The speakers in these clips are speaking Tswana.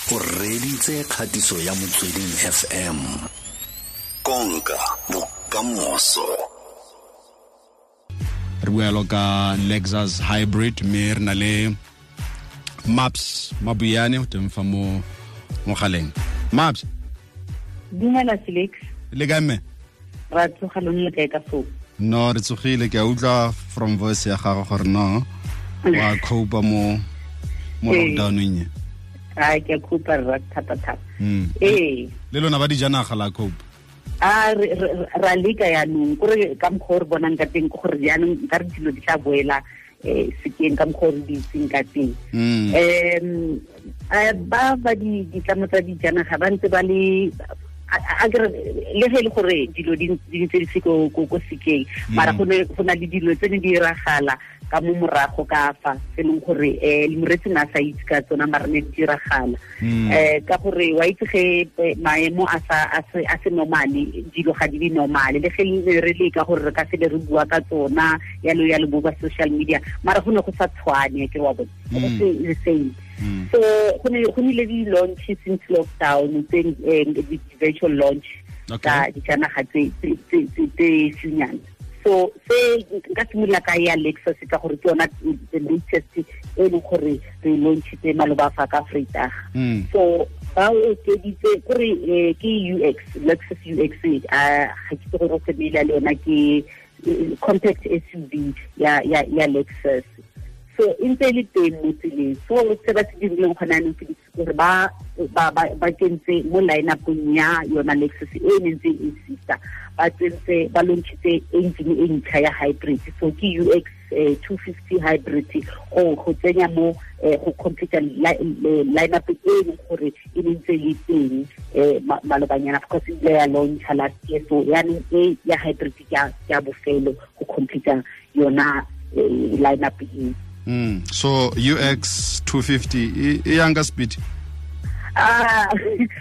O reditse kgatiso ya Motsweding FM. Konka bokamoso. Re bua yalo ka Lexus hybrid, mme re na le Maps Mabuyane o teng fa mo mogaleng. Maps. Dumela Felix. Le kae mme? Ra tsoga, lone le kae ka foo? No, re tsogile. Ke a utlwa from voice ya gago gore no wa copa mo lockdowneng e. A ke a copa rra, thata thata. Ee. Le lona ba dijanaga la cope? A ra leka yaanong, kore ka mokgwa o re bonang ka teng ke gore jaanong nka re dilo di tla boela sekeng ka mokgwa o re di itseng ka teng. Ba di ditlamo tsa dijanaga ba ntse ba le a kere le ge e le gore dilo di ntse di se ko sekeng, mara go na le dilo tse ne di diragala ka mo morago ka fa se leng gore moretsi na sa itse ka tsona, mara ne di diragala. Ka gore wa itse ge maemo a sa a se normale, dilo ga di be normale, le ge ne re leka gore re ka se le re bua ka tsona yalo yalo bo ba social media, mara go ne go sa tshwane, ke wa bona, go se the same. So go nile di-launch since lockdown tse di-virtual launch tsa dijanaga tse fenyana. So se nka simolola ka ya Lexus ka gore ke yona the latest e leng gore re launchitse maloba fa ka Vrydag. So ba okeditse kore ke UX, Lexus UX, a ga ke itse gore o familiar le yona, ke compact SUV ya Lexus. So e ntse e le teng mo tseleng. So se ba se dirileng gone anong, Felix, gore ba kentse mo line-upong ya yona Lexus e ne ntse e exista, ba tsentse, ba launchitse engine e ntšha ya hybrid. So ke UX 250 hybrid go tsenya mo go complete line-up e leng gore e ne ntse e le teng malobanyana. Of course ile ya launcha last year, so yaanong e ya hybrid ke ya bofelo go complete yona line-up e. So UX 250 e yang ka speed? Ah,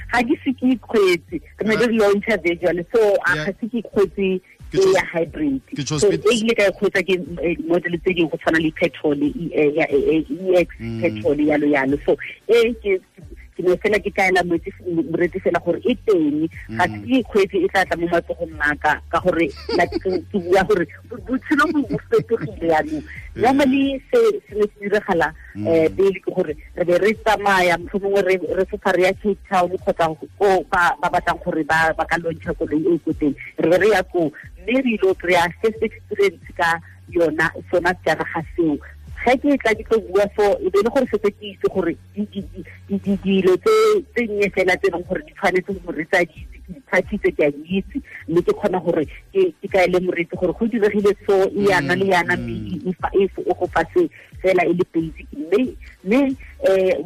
ga ke se ke ikgwetse, re ne re launcha virtual, so a ga se ke ikgwetse e ya hybrid. So e ile ka ikgwetsa ke model tse dingwe go tshwana le petrol, EX petrol, yalo yalo. So e ke ne fela ke kaela moretsi fela gore e teng, ga se ke ikgwetse, e tla tla mo matsogong a ka, ka gore ke bua gore botshelo bo fetogile yaanong. Normally se se ne se diragala pele ke gore re be re tsamaya, mohlomongwe re fofa re ya Cape Town kgotsa ko ba batlang gore ba ka launcha koloi e ko teng, re be re ya koo mme re ile kry-a first experience ka yona sona sejanaga seo. Ge ke tla ke tlo bua, so e be le gore setse ke itse gore dilo tse nnye fela tse e leng gore di tshwanetse moretsi a di itse, ke di thathitse, ke a di itse, mme ke kgona gore ke kaele moretsi gore go diregile so e yana le yana, mme e go fa se fela e le basic. Mme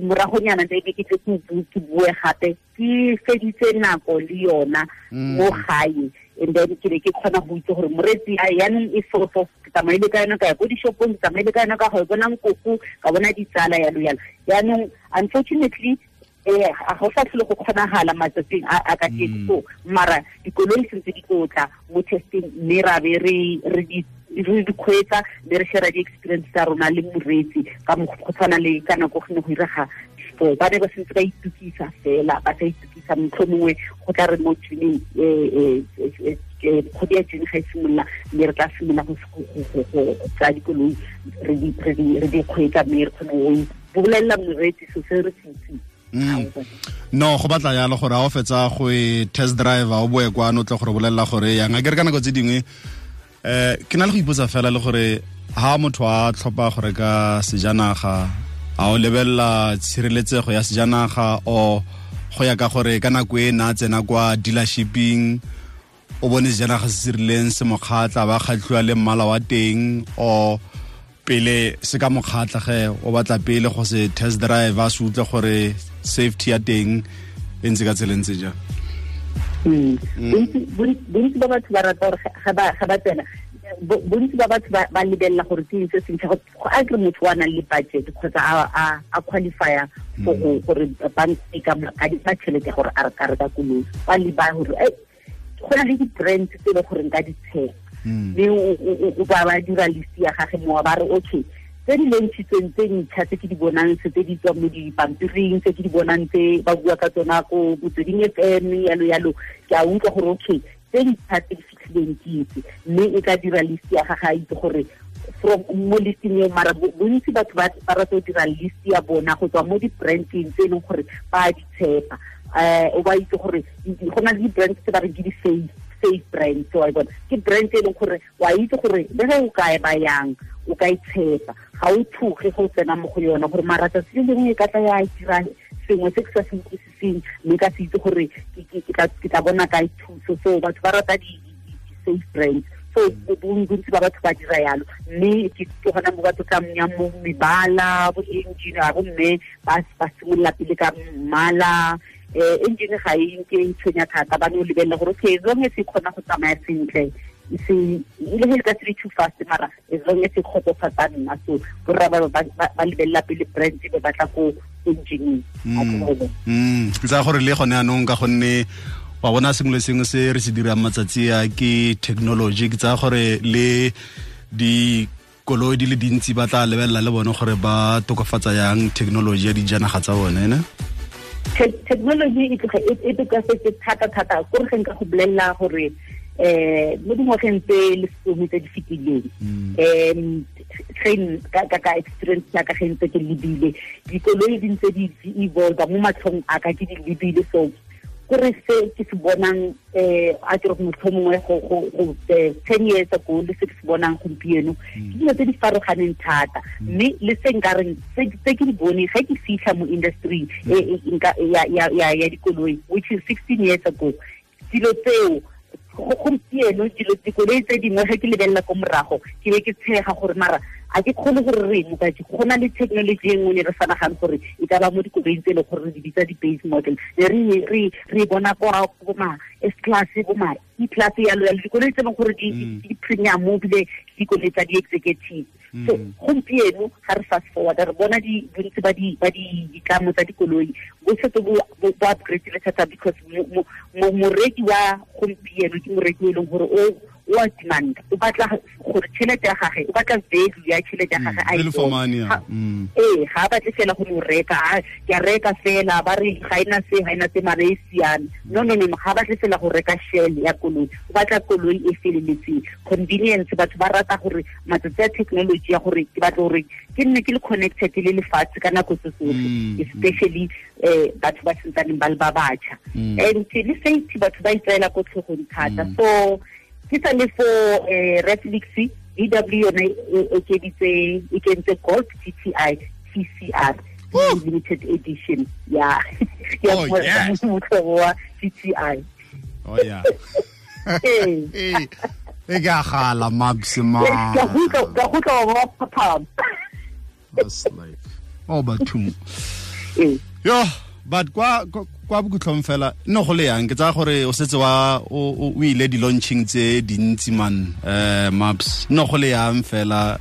moragonyana ntse ke tle ke bue gape ke feditse nako le yona mo gae, and then ke be ke kgona go itse gore moretsi a yaanong e so so ke tsamaile ka yona ka ya ko dishopong, ke tsamaile ka yona ka go bona nkoko, ka bona ditsala, yalo yalo. Yaanong unfortunately ga go sa tlhole go kgonagala matsatsing a ka teng. So mara dikoloi sentse di tlo tla mo testing, mme ra be re di kgweetsa, mme re share di-experience tsa rona le moreetsi ka go tshwana le ka nako go ne go irega before. Ba ne ba sentse ba itukisa fela, ba sa itukisa, motlho mongwe go tla re mo June, kgwedi ya June ga e simolola, mme re tla simolola go tsaya dikoloi re di kgweetsa, mme re kgone go bolelela moreetsi so se re se itseng. No, go batla yalo gore a o fetsa go e test drive o boe kwano o tle gore bolelela gore yang. A ke re ka nako tse dingwe ke na le go ipotsa fela le gore ha motho a tlhopha go reka sejanaga, a o lebelela tshireletsego ya sejanaga o go ya ka gore ka nako e na tsena kwa dealershiping o bone sejanaga se se rileng se mo kgatlha, ba kgatlhiwa le mmala wa teng, o pele se ka mo kgatlha ge o batla pele go se test drive a se utlwe gore safety ya teng e ntse ka tsela e ntse jang? Bontsi ba batho ba rata gore ga ba tsena, bontsi ba batho ba lebelela gore ke eng se sentšha. Go a kere motho wa nang le budget kgotsa a qualifya for gore bank e ka mo adima tšhelete gore a re ka reka koloi, ba leba gore go na le di-brands tse e leng gore nka di tshepa, mme o ba dira list ya gage mo ba re okay. Tse di launchitsweng tse ntšha tse ke di bonang tse di tswang mo dipampiring, tse ke di bonang tse ba bua ka tsona ko Motsweding FM yalo yalo, ke a utlwa gore okay, tse ntšha tse di fitlhileng ke itse, mme e ka dira list ya gagwe a itse gore from mo listing eo. Mara bontsi batho ba rata go dira list ya bona go tswa mo di-branding tse e leng gore ba di tshepa. O ba itse gore go na le di-brand tse ba reng ke di-safe brand, so wa bona ke brand e leng gore wa itse gore le ge o kae ba yang o ka e tshepa, ga o tshoge go tsena mo go yona gore mara tsatsi le lengwe e ka tla ya dira sengwe se ke sa se utlwisiseng, mme ka se itse gore ke tla bona kae thuso. So batho ba rata di-safe brands, so bontsi ba batho ba dira yalo, mme ke gona mo batho tla yang mo mebala, bo engine bo mme ba simolola pele ka mmala. Engine ga e nke e tshwenya thata, ba no lebelela gore okay, as long as e kgona go tsamaya sentle, se ile he ka se too fast, mara as long as e kgotsofatsa nna. So borra ba lebelela pele brand be batla ko engine. Ke tsaya gore le gone anong ka gonne wa bona sengwe le sengwe se re se dirang matsatsi a ke technology, ke tsaya gore le dikoloi di le dintsi ba tla lebelela le bone gore ba tokafatsa yang technology ya dijanaga tsa bone, ne? Technology e tloga e tokafetse thata thata, kore ge nka go bolelela gore mo dingwageng tse lesome tse di fetileng, ka experience ya ka ge ntse ke lebile dikoloi di ntse di evolve mo matlhong a ka, ke di lebile. So kore se ke se bonang a ke re motlhomongwe go 10 years ago le se ke se bonang gompieno ke dilo tse di farologaneng thata, mme le se nka reng tse ke di bone ge ke fitlha mo industry ya dikoloi, which is 16 years ago, dilo tseo gompieno dilo dikoloi tse dingwe ge ke lebelela ko morago ke be ke tshega gore mara a ke kgone gore re mo ka go na le technology e nngwe ne re sa nagane gore e ka ba mo dikoloing tse e leng gore re di bitsa di-base model, ne re bona kwa bo ma S class, bo ma E class yalo yalo, dikoloi tse e leng gore di premium ebile dikoloi tsa di-executive. So gompieno ga re fast forward re bona bontsi ba ditlamo tsa dikoloi bo setse bo upgrade-ile thata, because moreki wa gompieno ke moreki o e leng gore o a demand, o batla gore tšhelete ya gagwe, o batla value ya tšhelete ya gagwe a e bone. Ga a batle fela go no reka, ke a reka fela ba re ga ena se, ga ena se, mara e siame. No, ga a batle fela go reka shell ya koloi, o batla koloi e feleletseng. Convenience, batho ba rata gore matsatsi a technology ya gore ke batla gore ke nne ke le connected le lefatshe ka nako tse tsotlhe, especially batho ba sentsaneng ba le ba batjha. And le safety batho ba itseela ko tlhogong thata. So ke sa le fo Reflix VW yone e okeditse, e kentse Golf GTI TCR limited edition ya motho wa GTI. Oh yeah. E ka gala Max ma. Ka go tla wa papa. That's life. Oh batho. Yo, but kwa bokhutlong fela no go le yang ke tsaya gore o setse wa o ile di-launching tse dintsi man, Maps no go le yang fela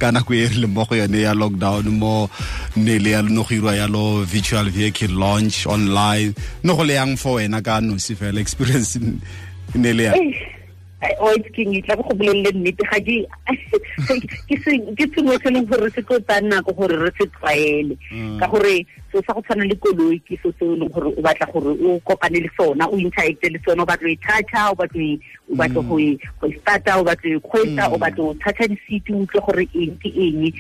ka nako e re leng mo go yone ya lockdown mo ne le ya no go irwa yalo virtual vehicle launch online, no go le yang for wena ka nosi fela experience ne le yang? O itse ke tla go bolelele nnete, ga ke sengwe se leng gore se tlo tsaya nako gore re se tlwaele, ka gore so sa go tshwana le koloi ke so se e leng gore o batla gore o kopane le sona, o interacte le sona, o batla go e toucha, o batla go e starta, o batla go e kgweetsa, o batla go toucha di-seat, o utlwe gore eng ke eng.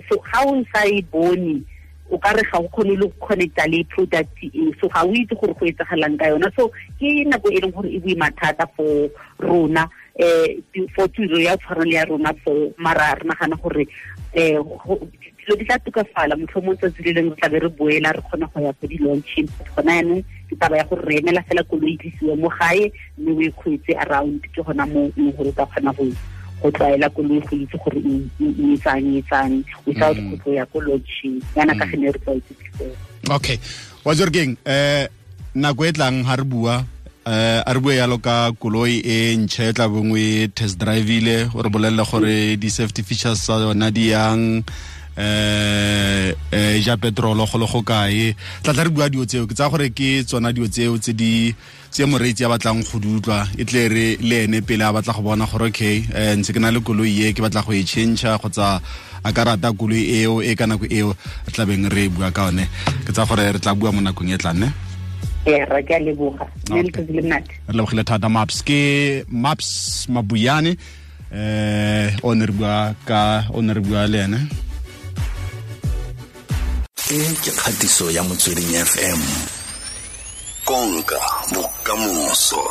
So ga o sa e bone o ka re ga o kgone le go connecta le product e, so ga o itse gore go etsagalang ka yona. So ke nako e leng gore e boima thata for rona, for tiro ya tshwana le ya rona, for mara re nagana gore dilo di tla tokafala motlhomong tsatsi le lengwe re tla be re boela re kgona go ya ko di-launching. Gona yanong ke taba ya gore re emela fela koloi e tlisiwe mo gae mme o e kgweetse around, ke gona mo e leng gore o ka kgona go tlwaela koloi, go itse gore e etsang without go tlo ya ko launching yana ka gene re tlwaetse before. Okay, wa Jorgeng, nako e tlang ha re bua a re bue yalo ka koloi e ntšha e tla bongwe test drive-ile, o re bolelele gore di-safety features tsa yona di yang, Ja petrolo go le go kae, tla tla re bua dio tseo. Ke tsa gore ke tsona dio tseo tse di tse moreetsi a batlang go di utlwa, e tle re le ene pele a batla go bona gore okay, ntse ke na le koloi e ke batla go e change kgotsa a ka rata koloi eo e ka nako eo re tla beng re bua ka one. Ke tsa gore re tla bua mo nakong e tlang, ne? Ee, ra ke a leboga. Mme letsatsi le monate. Re lebogile thata, Maps. Ke Maps Mabuyane, o ne re bua ka, o ne re bua le ene. E ke kgatiso ya Motsweding FM, konka bokamoso.